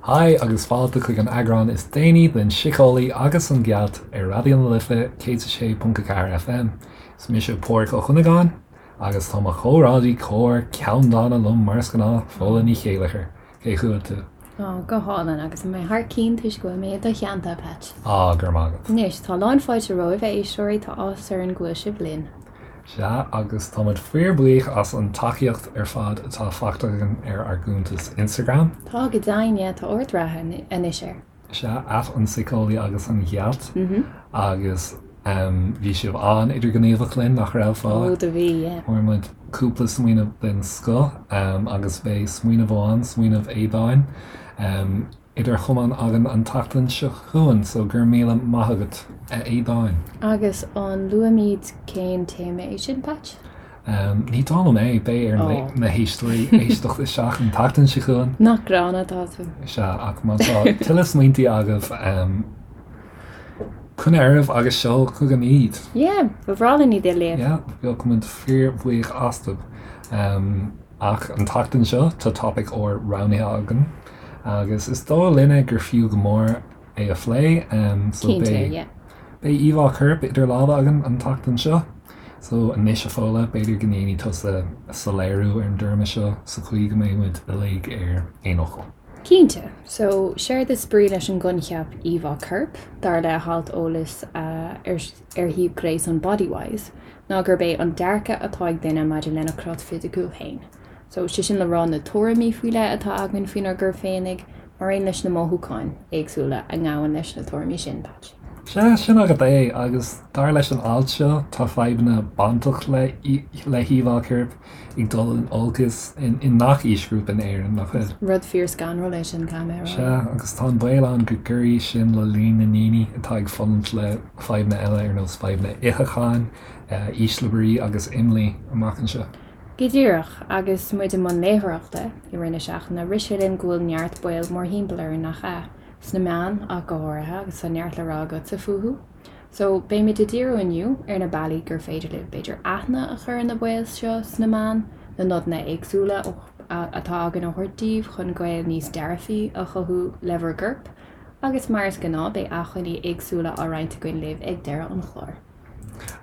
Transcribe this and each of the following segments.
Haigh agus fáilte chuig an eagrán is déanaí den Síceolaí agus an Ghealt ar Raidió na Life 106.4 FM. Is mise Pádraig Ó Cuinneagáin agus tá mo chomrádaí cóir ceanndána liom mar is gnáth, Fódhla Ní Chéilleachair. Cén chaoi a bhfuil tú? Á, go hálainn, agus mé thar cionn toisc go bhfuil mé i do theannta, a Pheait. Á, go raibh maith agat. Anois, tá lán fáilte romhaibh, a éisteoirí, tá áthas orainn go bhfuil sibh linn. Sea, agus tá muid fíorbhuíoch as an tacaíocht ar fad atá faighte againn ar ár gcuntas Instagram. Tá, go deimhin, yeah, tá ard-rath anois air. Sea, at an Síceolaí agus an Ghealt. Agus bhí sibh an-idirghníomhach linn, nach raibh, Fódhla? Ó, do bhí, yeah. Fuair muid cúpla smaoineamh den scoth agus beidh smaoineamh amháin, smaoineamh Aodáin, idir chamáin againn an tseachtain seo chugainn, so go raibh míle maith agat, a Aodáin. Agus an luaimid cén téama é sin, Patch? Ní dóigh liom é, beidh ar na héisteoirí éisteacht isteach an tseachtain seo chugainn. Nach gránna atá tú. Sea, ach má tá tuilleadh smaointe agaibh, coinnigh oraibh agus seol chugainn iad. Yeah, ba bhreá linn iad a léamh. Yeah, bheadh muid fíorbhuíoch astu. Ach an tseachtain seo, tá topaic úr roghnaithe againn agus is dóigh linne gur fiú go mór é a phlé. So Cinnte, beidh yeah. beidh íomhá coirp idir lámha againn an tseachtain seo. So anois a Fódhla, b'fhéidir go ndéanfaidh tusa soiléiriú ar an dtéarma seo sa chaoi go mbeidh muid uilig ar aon fhocal. Cinnte. So, séard is brí leis an gcoincheap íomhá coirp, dar le halt eolais ar ar shuíomh gréasáin Bodywhys, ná gurb é an dearcadh atá ag duine maidir lena chrot fisiciúil féin. So, sé sin le rá na tuairimí faoi leith atá againn faoinár gcorp féinig, mar aon leis na mothúcháin éagsúla a ngabhann leis na tuairimí sin, Patch. Sea, sin agat é, agus dar leis an alt seo, tá fadhbanna bainteach le le híomhá coirp ag dul in olcas i ngach aoisghrúpa in Éirinn, nach bhfuil? Rud fíor scanrúil é sin, caithfidh mé a rá. Sea, agus tá an baol ann go gcuirfidh sin le líon na ndaoine atá ag fulaingt le fadhbanna eile ar nós fadhbanna itheacháin, ísle brí agus imní amach anseo. Go díreach, agus muid i mbun léitheoireachta i rith na seachtaine, rith sé linn go bhfuil neart baol mórthimpeall orainn, nach ea? Sna meáin ach go háirithe, agus tá neart le rá agatsa fúthu. So, beimid ag díriú inniu ar na bealaí gur féidir libh, b'fhéidir, aithne a chur ar na baoil seo sna meáin, na nodanna éagsúla atá againn a thabhairt daoibh chun gaol níos dearfaí a chothú le bhur gcorp, agus mar is gnáth, beidh acmhainní éagsúla á roinnt againn libh ag deireadh an chláir.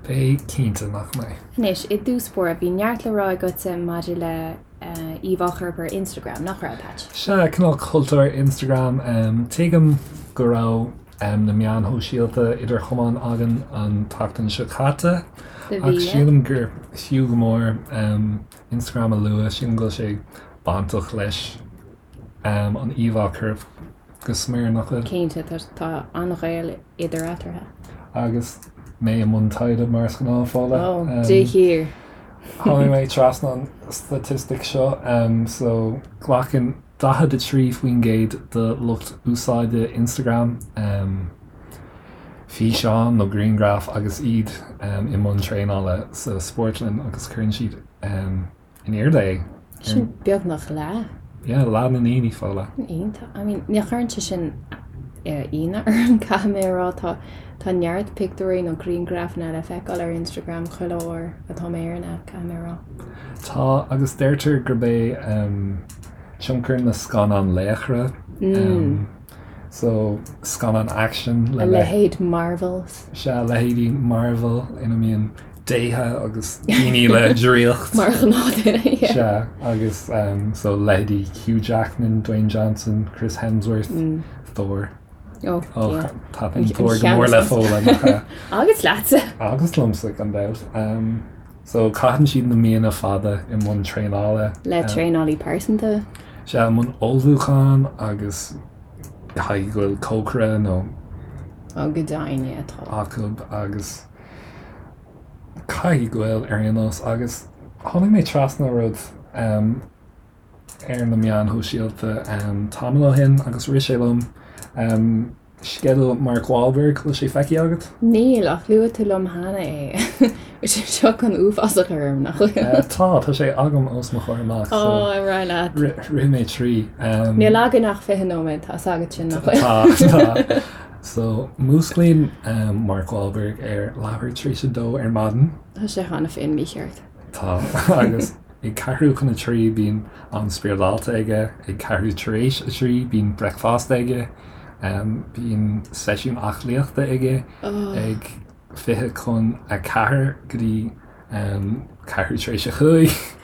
Beidh, cinnte, nach mbeidh? Anois, i dtús báire, bhí neart le rá agatsa maidir le íomhá choirp ar Instagram, nach raibh, Patch? Sea, cineál cultúr Instagram. Tuigim go raibh na meáin shóisialta idir chamáin againn an tseachtain seo caite, ach sílim gur fiú go mór Instagram a lua, sílim go bhfuil sé bainteach leis an íomhá choirp go smior, nach bhfuil? Cinnte, tá an-ghaol idir eatarthu. Agus mé i mbun taighde mar is gnáth, Fódhla. Ó, de shíor. Tháinig mé trasna an staitistic seo, so glacann 43% de lucht úsáide Instagram físeán nó grianghraf agus iad i mbun traenála sa spórtlann agus cuireann siad in airde é. Sin beagnach leath. Yeah, leath na ndaoine, Fódhla. Iontach. I mean, ní chuireann sé sin ionadh orm, caithfidh mé a rá. Tá, tá neart pictiúirí nó grianghrafanna le feiceáil ar Instagram chuile uair atá mé ar an aip, caithfidh mé a rá. Tá, agus deirtear gurb é tionchar na scannán laochra, so scannán action le. A leithéid Marvels. Sea, leithéidí Marvel ina mbíonn déithe agus daoine le draíocht. Mar ghnáthdhuine, yeah. Sea, agus so leithéidí Hugh Jackman, Dwayne Johnson, Chris Hemsworth, Thor. Oh, yeah. Taitníonn Thor go mór le Fódhla, nach ea? Agus leatsa! Agus liomsa, gan dabht. So caitheann siad na míonna fada i mbun traenála. Le traenálaí pearsanta. Sea, i mbun ullmhúcháin agus caithfidh go bhfuil cócaire nó. Oh, go deimhin, yeah, tá. acu agus. Caithfidh go bhfuil, ar aon nós, agus tháinig mé trasna rud ar na meáin shóisialta tamall ó shin agus rith sé liom, sceideal Mark Wahlberg, bhfuil sé feicthe agat? Níl, ach luaigh tú liom cheana é. Bhfuil sé seo chun uafás a chur orm, nach bhfuil? Tá, tá sé agam os mo chomhair amach, so Ó, ar aghaidh leat. rith mé trí. Níl againn ach 20 nóiméad, tá 'fhios agat sin, nach bhfuil? Tá, tá. So, músclaíonn Mark Wahlberg ar leathuair tar éis a dó ar maidin. Tá sé cheana féin mícheart. Tá, agus. Ag ceathrú chun a 3 bíonn am spioradálta aige, ag ceathrú tar éis a 3 bíonn bricfeasta aige, bíonn seisiún aclaíochta aige ag 20 chun a 4 go dtí ceathrú tar éis a 5.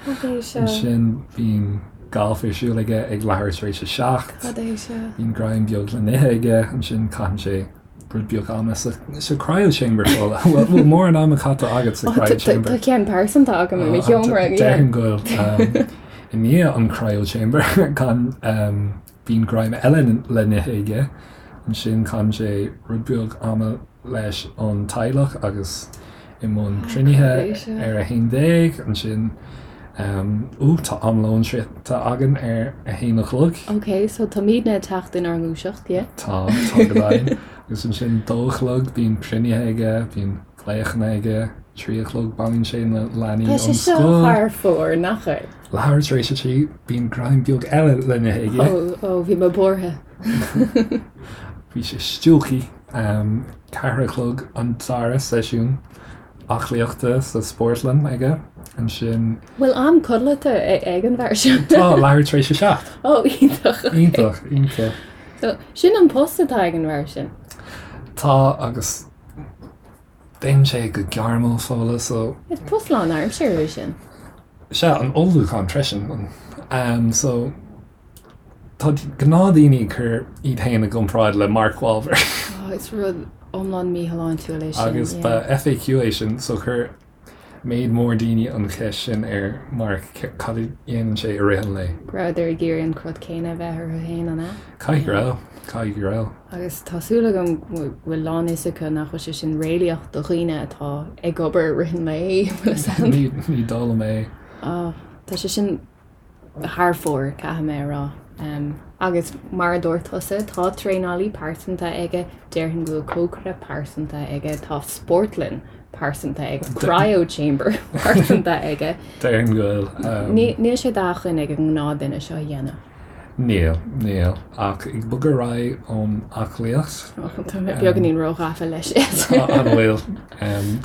Ansin bíonn galf ar siúl aige ag leathuair tar éis a 7. Bíonn greim beag le n-ithe aige, ansin caitheann sé rud beag ama sa cryo chamber Fódhla. Bhfuil mórán ama caite agat sa cryo chamber? Tá ceann pearsanta agam i mo sheomra. Déarfainn go bhfuil. I ndiaidh an cryo chamber bíonn greim eile le n-ithe aige. Ansin caitheann sé rud beag ama leis an teaghlach agus i mbun cruinnithe ar 11. Ansin Ó tá am lóin sroichte againn ar a haon a chlog. Ok, so táimidne ag teacht inár ngluaiseacht, yeah? Tá, tá go deimhin. Agus ansin 2 a chlog bíonn cruinnithe aige, bíonn glaochanna aige, 3 a chlog bailíonn sé na leanaí ón scoil. Tá sé seo thar fóir, nach é? Leathuair tar éis a 3 bíonn greim beag eile le n-ithe aige. Ó, ó, bhí mé buartha. Bhí sé stiúgtha. 4 a chlog an dara seisiún. aclaíochta sa spórtlann aige ansin. Bhfuil am codlata ag an bhfear seo? Tá, leathuair tar éis a 7. Ó, iontach. Iontach, iontach. So, sin an post atá ag an bhfear sin? Tá, agus déanann sé go gairmiúil Fódhla, so. Is post lánaimseartha é sin. Sea, an ullmhúchán freisin. So. Tá gnáthdaoine ag cur iad féin i gcomparáid le Mark Wahlberg. Oh, is rud iomlán míshláintiúil é sin. Agus ba FAQ é sin, so chuir méid mór daoine an cheist sin ar Mark, cad a dhéanann sé i rith an lae. Go rabhadar ag iarraidh an crot céanna a bheith orthu féin, an ea? Caithfidh go raibh, caithfidh go raibh. Agus tá súil agam go bhfuil lán fhios acu nach bhfuil sé sin réalaíoch do dhaoine atá ag obair i rith an lae, bhfuil fhios a'd? Ní, ní dóigh liom é. Oh, tá sé sin thar fóir, caithfidh mé a rá. Agus mar a dúirt tusa, tá traenálaí pearsanta aige, déarfainn go bhfuil cócaire pearsanta aige, tá spórtlann pearsanta aige, cryo chamber pearsanta aige. Déarfainn go bhfuil. Níl sé d'acmhainn ag an ngnáthdhuine seo a dhéanamh. Níl, níl. Ach ag bogadh ar aghaidh ón aclaíocht. Tá mé beagáinín róghafa leis. An bhfuil?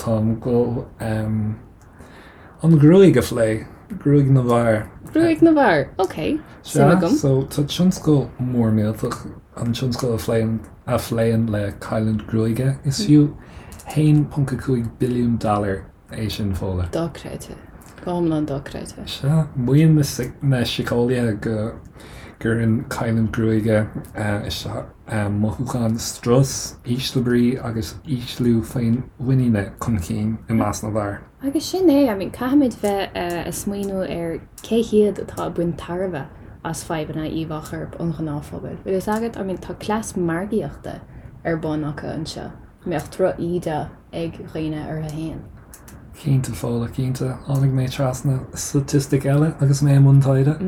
Táim ag dul. An ghruaig a phlé, gruaig na bhfear. Gruaig na bhfear, ok, suim agam. So tá tionscal mór millteach, an tionscal a phléann, a phléann le cailliúint gruaige. Is fiú 1.5 billiún dollar é sin, Fódhla. Dochreidte. Go hiomlán dochreidte. Sea, maíonn na síceolaithe go gcuireann cailliúint gruaige isteach mothúcháin strus, ísle brí agus ísliú féinmhuiníne chun cinn i measc na bhfear. Agus sin é, I mean, caithfimid bheith a' smaoineamh ar cé hiad atá ag baint tairbhe as fadhbanna íomhá choirp an ghnáthphobail. Bhfuil fhios agat, I mean, tá cleas margaíochta ar bun acu anseo. mbeadh droch-íde ag dhaoine orthu fhéin. Cinnte, Fódhla, cinnte. Tháinig mé trasna staitistic eile agus mé i mbun taighde.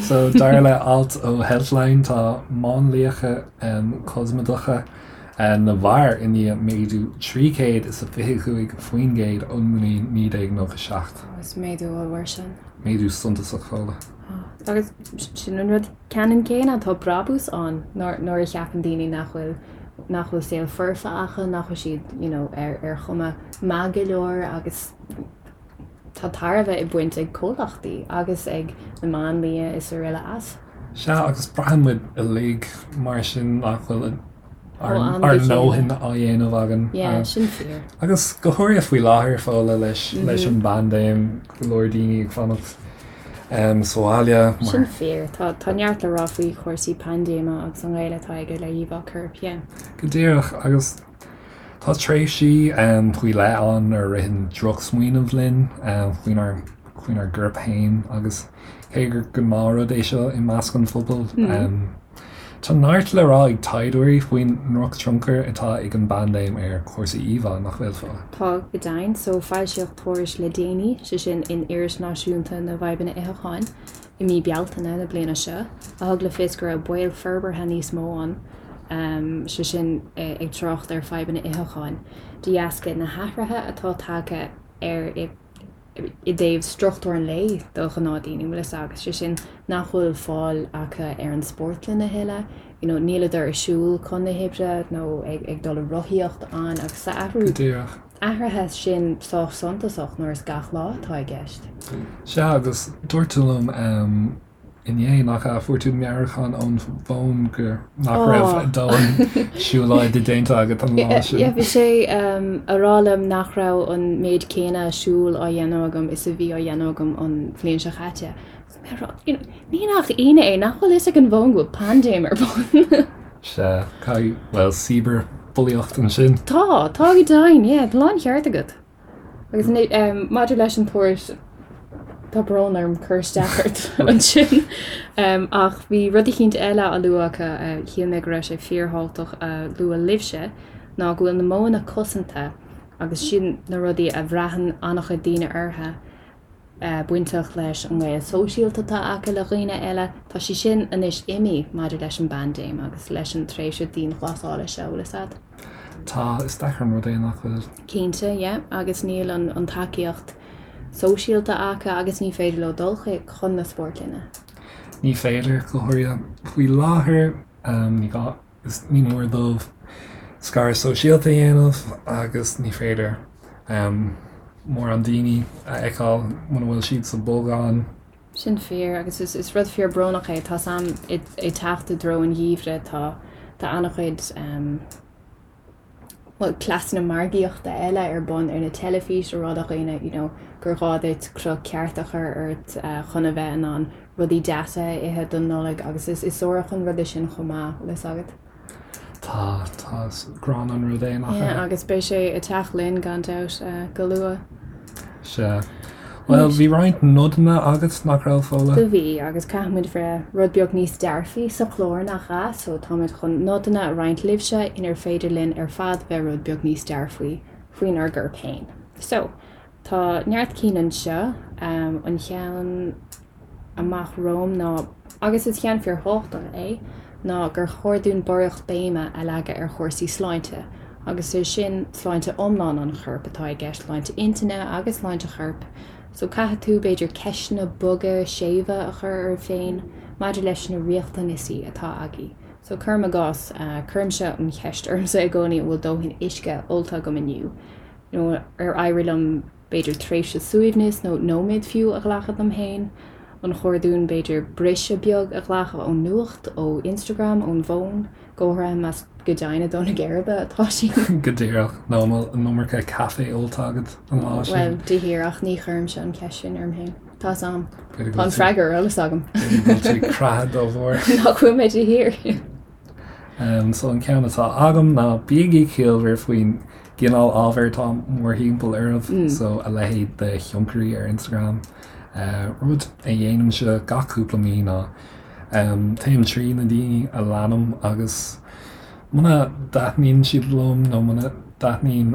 So, dar le alt ó Healthline, tá máinliachta cosmaideacha na bhfear i ndiaidh méadú 325% ón mbliain 1997. Is méadú ollmhór sin. Méadú suntasach, Fódhla. Agus sin an rud ceannann céanna, tá brabús ann nuair a cheapann daoine nach bhfuil nach bhfuil saol foirfe acu, nach bhfuil siad you know ar ar chuma maith go leor agus tá tairbhe á baint ag comhlachtaí agus ag na máinlia is araile as. Sea, agus braitheann muid uilig mar sin nach bhfuil ár ár ndóthain á dhéanamh againn. Yeah, sin fíor. Agus go háirithe faoi láthair, Fódhla, leis leis an bpaindéim, go leor daoine ag fanacht sa bhaile mar. Sin fíor. Tá tá neart le rá faoi chúrsaí paindéime agus an gaol atá aige le híomhá coirp, yeah. Go díreach, agus tá tréimhsí faoi leith ann nuair a ritheann drochsmaoineamh linn faoinár faoinár gcorp féin agus cé gur gnáthrud é seo i measc an phobail, Tá neart le rá ag taighdeoirí faoin ndrochthionchar atá ag an bpaindéim ar chúrsaí íomhá, nach bhfuil, Fódhla? Tá, go deimhin. So, foilsíodh tuairisc le déanaí, sé sin in Iris Náisiúnta na bhFadhbanna Itheacháin i mí Bealtaine na bliana seo, a thug le fios go raibh baol forbartha níos mó ann, sé sin ag trácht ar fadhbanna itheacháin, de dheasca na hathruithe atá tagtha ar i i dtaobh struchtúr an lae do ghnáthdhaoine, bhfuil fhios agat, sé sin nach bhfuil fáil acu ar an spórtlann a thuilleadh, you know, níleadar ag siúl chun na hoibre nó ag, ag dul ag rothaíocht ann agus tá athrú, Go díreach. athruithe sin sách suntasach nuair is gach lá atá i gceist. Sea, agus dúirt tú liom inné, nach ea, fuair tú meabhrúchán ón bhfón gur nach raibh dóthain siúlóide déanta agat an lá sin. Yeah, bhí sé a rá liom nach raibh an méid céanna siúil á dhéanamh agam is a bhí á dhéanamh agam an bhliain seo chaite. Ní nach ionadh é, nach bhfuil fhios ag an bhfón go bhfuil paindéim ar bun. Sea, caithfidh, bhuel, cibearbhulaíocht ansin. Tá, tá go deimhin, yeah, tá láncheart agat. Agus maidir leis an tuairisc, tá brón orm cur isteach ort ansin, ach bhí rud eicínt eile á lua acu, shíl mé go raibh sé fíorthábhachtach a lua libhse, ná go bhfuil na modhanna cosanta, agus sin na rudaí a bhraitheann an-chuid daoine orthu, bainteach leis an ngaol sóisialta atá acu le dhaoine eile, tá sé sin anois imithe maidir leis an bpaindéim agus leis an tréimhse dianghlasála seo, bhfuil fhios a'd. Tá, is deacair an rud é nach bhfuil. Cinnte, yeah, agus níl an tacaíocht sóisialta acu agus ní féidir leo dul chuig, chun na spórtlainne. Ní féidir, go háirithe faoi láthair, ní gá, is ní mór dóibh scaradh sóisialta a dhéanamh agus ní féidir mórán daoine a fheiceáil muna bhfuil siad sa bolgán. Sin fíor agus is rud fíor brónach é. Tá's a'm ag teacht i dtreo an gheimhridh tá tá an-chuid bhuel cleasanna margaíochta eile ar bun ar na teilifís a rá do dhaoine you know gur ghá duit cruth ceart a chur ort chun a bheith in ann rudaí deasa a ithe don Nollaig agus is is suarach an rud é sin chomh maith, bhfuil fhios agat. Tá, tá, is gránna an rud é, nach ea? Yeah, agus beidh sé ag teacht linn gan dabht go luath. Sea. Bhuel, bhí roinnt nodanna agat, nach raibh, Fódhla? Do bhí, agus caithfimid bheith rud beag níos dearfaí sa chlár, nach ea? So táimid chun nodanna a roinnt libhse inar féidir linn ar fad bheith rud beag níos dearfaí faoinár gcorp féin. So, Tá neart cinn anseo. An cheann amach romham ná, agus is ceann fíorthábhachtach é, ná gur chóir dúinn barraíocht béime a leagadh ar chúrsaí sláinte, agus is sin sláinte iomlán an choirp atá i gceist, sláinte intinne agus sláinte choirp. So caithfidh tú, b'fhéidir, ceisteanna boga séimhe a chur oraibh féin maidir leis na riachtanaisí atá agaibh. So cuirim i gcás, cuirimse an cheist ormsa i gcónaí an bhfuil dóthain uisce ólta agam inniu? nó ar éirigh liom b'fhéidir tréimhse suaimhnis nó nóiméad fiú a ghlacadh dom féin? An chóir dúinn b'fhéidir briseadh beag a ghlacadh ón nuacht, ó Instagram, ón bhfón, go háirithe más go deimhin ag dó na geirbe atá sí? Go díreach, nó an bhfuil an iomarca caife ólta agat an lá sin? Bhuel, de dhíreach, ní chuirimse an cheist sin orm féin. Tá 's a'm. Tá an freagra ar eolas agam. B'fhéidir go bhfuil tú creatha dá bharr. Nach bhfuil mé de shíor. So an ceann atá agam ná bígí ciallmhar faoin gcineál ábhair atá mórthimpeall oraibh, so a leithéid de thionchairí ar Instagram. Rud a dhéanaimse gach cúpla mí ná téim trí na daoine a leanaim agus muna dtaitníonn siad liom nó muna dtaitníonn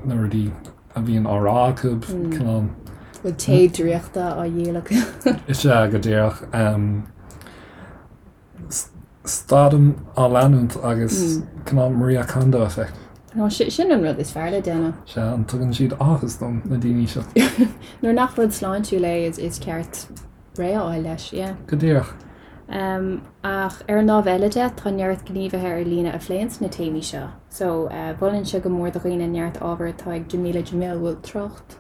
na rudaí a bhíonn á rá acu, cineál. Bhfuil tae draíochta á dhíol acu? Is ea, go díreach. Stadaim á leanúint agus cineál Maria Kondo effect. Nó sin an rud is fearr le déanamh. Sea, an tugann siad áthas dom, na daoine seo. Nuair nach rud sláintiúil é is ceart réidh a fháil leis, yeah. Go díreach. Ach ar an lámh eile de, tá neart gníomhaithe ar líne a phléanns na téamaí seo. So, mholfainnse go mór do dhaoine neart ábhair atá ag Jameela Jamil, bhfuil trácht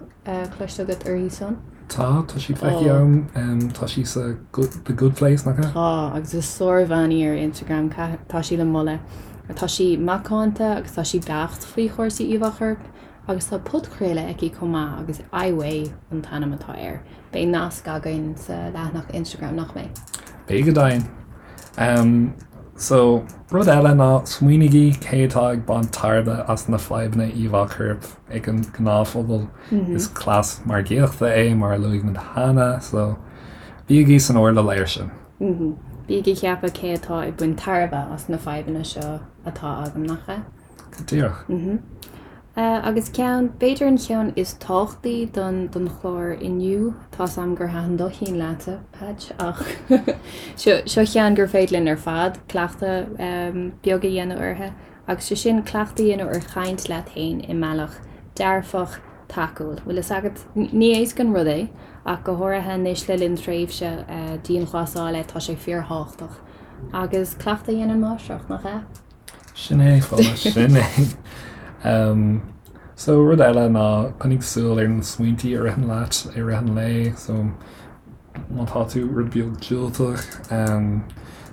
cloiste agat uirthi san? Tá, tá sí feicthe agam, tá sí sa The Good Place, nach ea? Tá, agus is sárbhean í ar Instagram, tá sí le moladh. Tá sí macánta agus tá sí beacht faoi chúrsaí íomhá choirp agus tá podchraoladh aici chomh maith agus I Weigh an t-ainm atá air. Beidh nasc againn sa leathanach Instagram, nach mbeidh? Beidh go deimhin. So, rud eile ná smaoinígí cé atá ag baint tairbhe as na fadhbanna íomhá choirp ag an ngnáthphobal. Is cleas margaíochta é, mar a luaigh muid cheana, so bígí san airdeall air sin. Bígí ag ceapadh cé atá ag baint tairbhe as na fadhbanna seo atá agam, nach ea? Go díreach. Agus ceann, b'fhéidir an cheann is tábhachtaí don don chlár inniu, tá's a'm gur thaitin do cheann leatsa, Patch, ach seo seo cheann gur féidir linn ar fad cleachtadh beag a dhéanamh uirthi, agus sé sin cleachtadh a dhéanamh ar chaint leat féin i mbealach dearfach, tacúil. Bhfuil fhios agat, ní éasca an rud é, ach go háirithe anois le linn tréimhse dianghlasála, tá sé fíorthábhachtach. Agus cleachtadh a dhéanann máistreacht, nach ea? Sin é, Fódhla, sin é. So rud eile ná coinnigh súil ar na smaointí a ritheann leat i rith an lae. So má tá tú rud beag diúltach,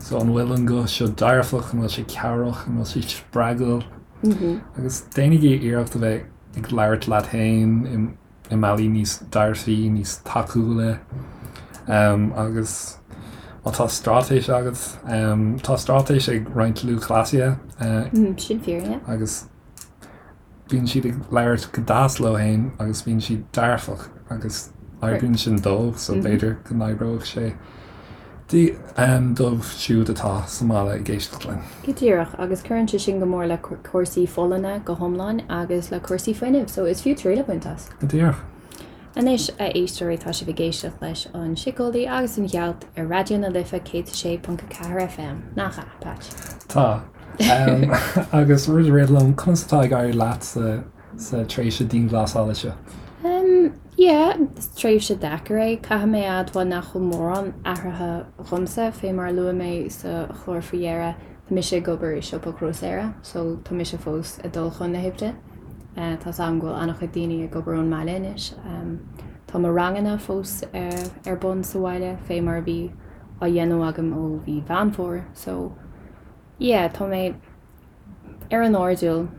so an bhfuil an guth seo dearfach, an bhfuil sé cabhrach, an bhfuil sé spreagúil? Agus déanaigí iarracht a bheith ag labhairt leat féin i mbealaí níos dearfaí, níos tacúla. Agus má tá straitéis agat, tá straitéis ag roinnt lúthchleasaithe. Sin fíor, yeah. Agus bíonn siad ag labhairt go deas leo féin agus bíonn siad dearfach agus oibríonn sin dóibh so b'fhéidir go n-oibreoidh sé dóibh siúd atá sa mbaile ag éisteacht linn. Go díreach, agus cuireann sé sin go mór le cúrsaí folláine go hiomlán agus le cúrsaí fuinnimh, so is fiú triail a bhaint as. Go díreach. Anois, a éisteoirí, tá sibh ag éisteacht leis An Síceolaí agus an Ghealt ar Raidió na Life 106.4 FM, nach ea, Patch? Tá. Agus rud a rith liom, conas atá ag éirí leat sa sa tréimhse dianghlasála seo? Yeah, is tréimhse deacair é. Caithfidh mé a admháil nach bhfuil mórán athraithe dhomsa, fé mar a luaigh mé sa chlár faoi dheireadh, tá mise ag obair i siopa grósaera, so tá mise fós ag dul chun na hoibre. Tá's agam go bhfuil an-chuid daoine ag obair ón mbaile anois. Tá mo ranganna fós ar bun sa bhaile, fé mar a bhí á dhéanamh agam ó mhí Mheán Fómhair, so yeah, tá mé ar an airdeall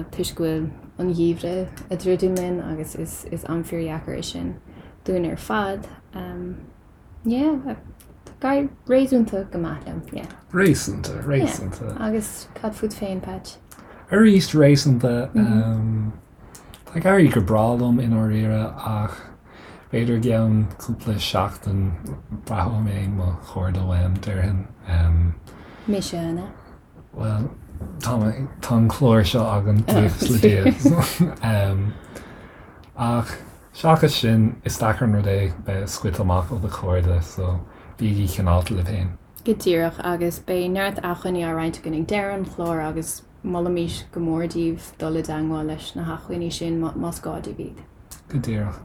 toisc go bhfuil an geimhreadh ag druidim linn agus is is am fíordheacair é sin dúinn ar fad. Yeah, tá ag éirí réasúnta go maith liom, yeah. Réasúnta, réasúnta. Yeah. Agus cad fút féin, Patch? Arís réasúnta. Tá ag éirí go breá liom i ndáiríre ach b'fhéidir i gceann cúpla seachtain braithfidh mé mo chairde uaim, déarfainn. Mise, an ea? Bhuel, tá mé, tá an clár seo againn, buíochas le Dia. Ach seachas sin, is deacair an rud é bheith scoite amach ó do chairde, so bígí cineálta libh féin. Go díreach, agus beidh neart acmhainní á roinnt againn ag deireadh an chláir agus Molaimís go mór daoibh dul i dteangmháil leis na hacmhainní sin más gá daoibh iad. Go díreach.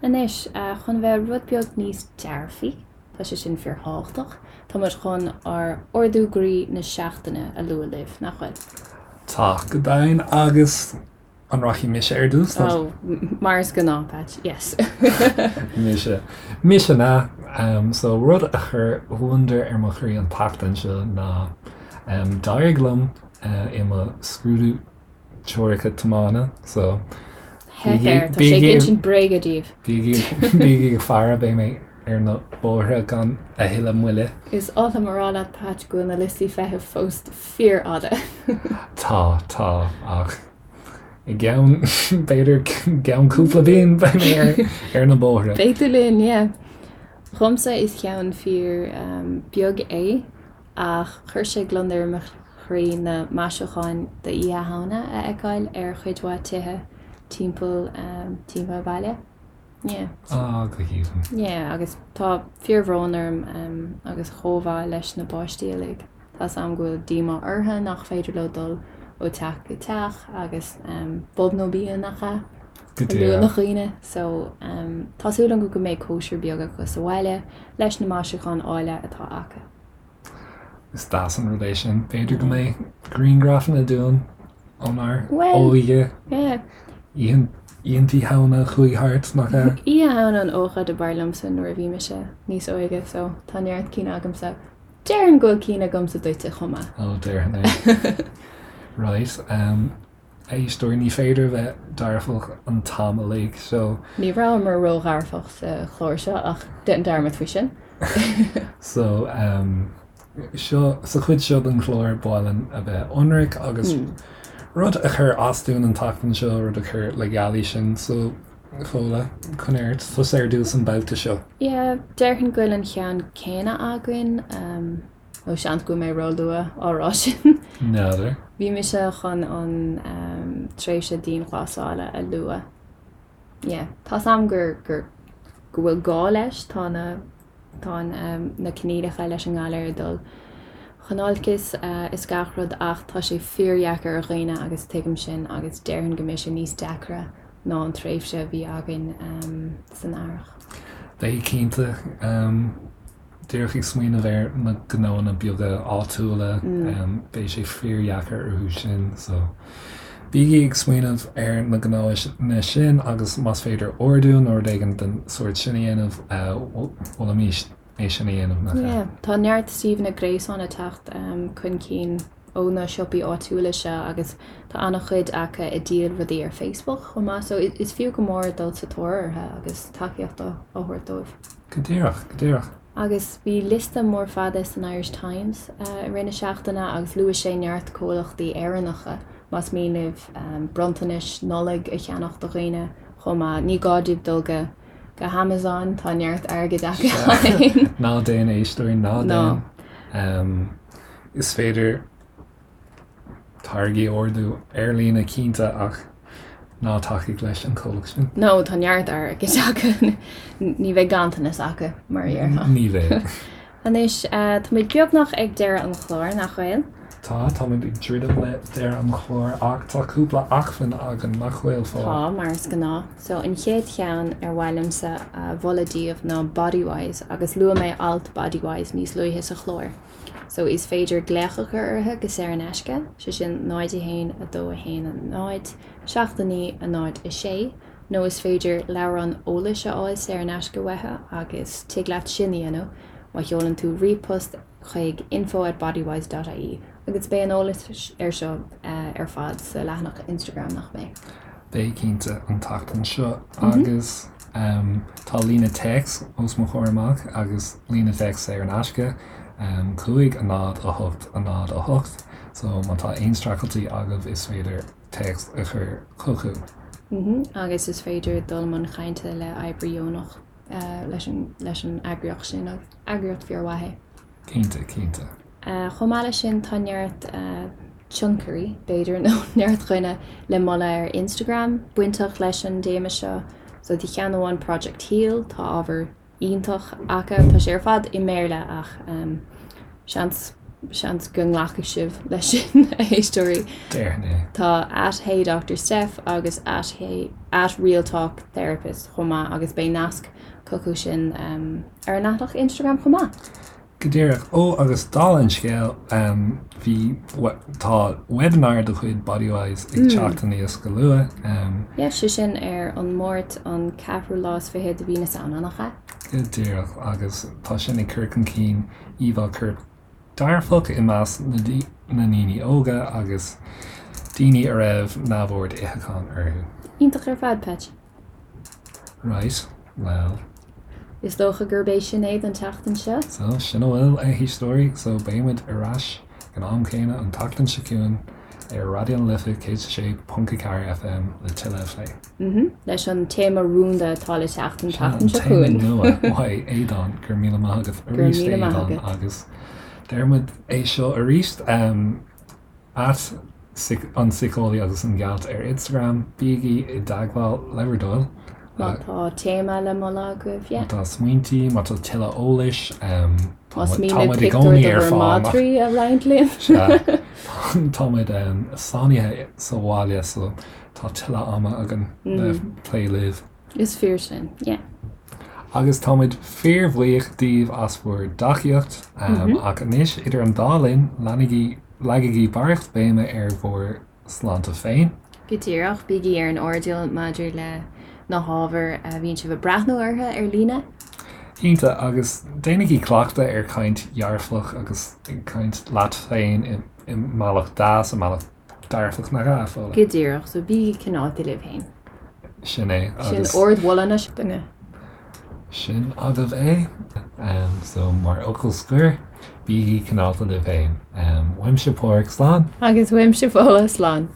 Anois, chun bheith rud beag níos dearfaí, tá sé sin fíorthábhachtach, tá muid chun ár ardú groí na seachtaine a lua libh, nach bhfuil? Tá, go deimhin, agus an rachaidh mise ar dtús? Oh, mar is gnáth, Patch, yes. Mise. Mise na. So, rud a chuir gliondar ar mo chroí an tseachtain seo ná d'éirigh liom i mo scrúdú teoirice tiomána so Theip air, tá sé ag insint bréige daoibh. Bígí ag faire, beidh mé ar na bóithre gan a thuilleadh moille. Is oth liom a rá leat Patch go bhfuil na liostaí feithimh fós fíorfhada. Tá, tá, ach i gceann, b'fhéidir gceann cúpla bliain beidh mé ar na bóithre. Beidh tú linn, yeah. Dhomsa is ceann fíor beag é. Ach chuir sé gliondar ar mo chroí na maisiúcháin d'Oíche Shamhna a fheiceáil ar chuid mhaith tithe timpeall timpeall an bhaile. Yeah. Ah, go haoibhinn. Yeah, agus tá fíorbhrón orm agus chomhbhá leis na páistí uilig. Tá's a'm go bhfuil díomá orthu nach féidir leo dul ó teach go teach agus bob nó bia nach ea? Go A luaigh na díreach. dhaoine. So, tá súil agam go mbeidh cóisir beag acu sa bhaile leis na maisiúcháin áille atá acu. Is deas an rud é sin. B'fhéidir go mbeidh grianghrafanna dúinn ónár óige. Oícheanta Shamhna a chuaigh thart, nach ea? Oíche Shamhna an ócáid ab fhearr liomsa nuair a bhí mise níos óige so tá neart cinn agamsa. Déarfainn go bhfuil cinn agamsa duitse chomh maith. Ó, déarfainn é. Right. Éisteoir, ní féidir a bheith dearfach an t-am uilig, so. Ní rabhamar ródhearfach sa chlár seo ach déan dearmad faoi sin. So, seo, sa chuid seo den chlár, ba mhaith linn a bheith ionraic agus rud a chuir as dúinn an tseachtain seo, rud a chuir le gealaí sinn, so, Fódhla, coinnigh ort, tusa ar dtús an babhta seo. Yeah, déarfainn go bhfuil an ceann céanna againn. Nó seans go bhfuil mé róluath á rá sin. N'fheadar. Bhí mise chun an tréimhse dianghlasála a lua. Yeah. Tá's a'm gur, gur, go bhfuil gá leis, tá na, tá an, na coinníollacha leis an ngalar ag dul chun olcais is gach rud ach tá sé fíordheacair ar dhaoine agus tuigim sin agus déarfainn go mbeidh sé níos deacra ná an tréimhse a bhí againn san earrach. Beidh cinnte. Díreach ag smaoineamh ar na gnóanna beaga áitiúla, beidh sé fíordheacair orthu sin, so. bígí ag smaoineamh ar na gnóanna sin agus más féidir ordú nó rud éigin den sórt sin a dhéanamh, mholfaimis é sin a dhéanamh, nach ea? Yeah, tá neart suíomhanna gréasáin ag teacht chun cinn ó na siopaí áitiúla seo agus tá an-chuid acu ag díol rudaí ar Facebook chomh maith, so is fiú go mór dul sa tóir orthu agus tacaíocht a thabhairt dóibh. Go díreach, go díreach. Agus bhí liosta mór fada san Irish Times i rith na seachtaine agus luaigh sé neart comhlachtaí Éireannacha más mian libh bronntanais Nollag a cheannach do dhaoine chomh maith. Ní gá daoibh dul go go hAmazon, tá neart airgid acu féin. Ná déan a éisteoirí, ná déan. Is féidir táirgí a ordú ar líne cinnte ach ná tacaigh leis an chomhlacht sin. No, tá neart airgid acu. Ní bheidh ganntanas acu, mar a déarfá. Ní bheidh. Anois, táimid beagnach ag deireadh an chláir, nach bhfuil? Tá, táimid ag druidim le deireadh an chláir ach tá cúpla acmhainn againn, nach bhfuil, Fódhla? Tá, mar is gnáth. So, an chéad cheann ar mhaith liomsa a mholadh daoibh ná Bodywhys agus luaigh mé alt Bodywhys níos luaithe sa chlár. So, is féidir glaoch a chur orthu go saor in aisce, sé sin 0 1 2 1 0 7 9 0 6, nó is féidir leabhrán eolais a fháil saor in aisce uathu agus tig leat sin a dhéanamh má sheolann tú ríomhphost chuig info at bodywhys dot ie agus beidh an eolas ar seo ar fad sa leathanach Instagram, nach mbeidh? Beidh cinnte, an tseachtain seo agus tá líne téacs os mo chomhair amach agus líne téacs saor in aisce, 5 0 8 0 8, so má tá aon streachailtí agaibh is féidir téacs a chur chucu. Agus is féidir dul i mbun cainte le oibrí deonach leis an leis an eagraíocht sin agus eagraíocht fíormhaith é. Cinnte, cinnte. Chomh maith leis sin tá neart tionchairí, b'fhéidir, nó neart dhaoine le moladh ar Instagram bainteach leis an dtéama seo. So tá ceann amháin Project Heal, tá ábhar iontach acu. Tá sé ar fad i mBéarla ach seans seans go nglacfaidh sibh leis sin, a éisteoirí. Déarfainn é. Tá at Hey Doctor Steph agus at Hey at Real Talk Therapist chomh maith agus beidh nasc chucu sin ar an leathanach Instagram chomh maith. Go díreach. Ó, agus dála an scéil, bhí, tá webinar de chuid Bodywhys ag teacht aníos go luath. Yeah, sé sin ar an Máirt an ceathrú lá is fiche de mhí na Samhna, nach ea? Go díreach, agus tá sin ag cur chun cinn íomhá coirp dearfach i measc na ndaoine óga agus daoine a raibh neamhord itheacháin orthu. Iontach ar fad, Patch. Right, well. Is dócha gurb é sin é don tseachtain seo. So, sin a bhfuil, a éisteoirí. So, beidh muid ar ais ag an am céanna an tseachtain seo chugainn ar Raidió na Life 106.4 FM le tuilleadh a phlé. Mhm. Leis an téama rúnda atá le teacht an tseachtain seo chugainn. Sin an téama nua uaidh Aodán. Go raibh míle maith agat arís, Aodán, agus deir muid é seo arís. At An Síceolaí agus an Gealt ar Instagram, bígí i dteagmháil le bhur dtoil. Má tá téama le moladh agaibh, yeah. Má tá smaointí, má tá tuilleadh eolais, Más mian libh pictiúr de bhur madraí a roinnt linn. Sea, tá muid sáinnithe sa bhaile so tá tuilleadh ama againn le plé libh. Is fíor sin, yeah. Agus táimid fíorbhuíoch daoibh as bhur dtacaíocht. Ach anois, idir an dá linn, leanaigí, leagaigí barraíocht béime ar bhur sláinte féin. Go díreach, bígí ar an airdeall maidir le na hábhair a bhíonn sibh ag breathnú orthu ar líne. Cinnte, agus déanaigí cleachtadh ar chaint dhearfach agus ag caint leat féin i mbealach deas, i mbealach dearfach, nach ea, Fódhla? Go díreach, so bígí cineálta libh féin. Sin é, agus. Sin ardmholadh na seachtaine. Sin agaibh é. So, mar fhocal scoir, bígí cineálta libh féin. Uaimse Páraic, slán. Agus uaimse Fódhla, slán.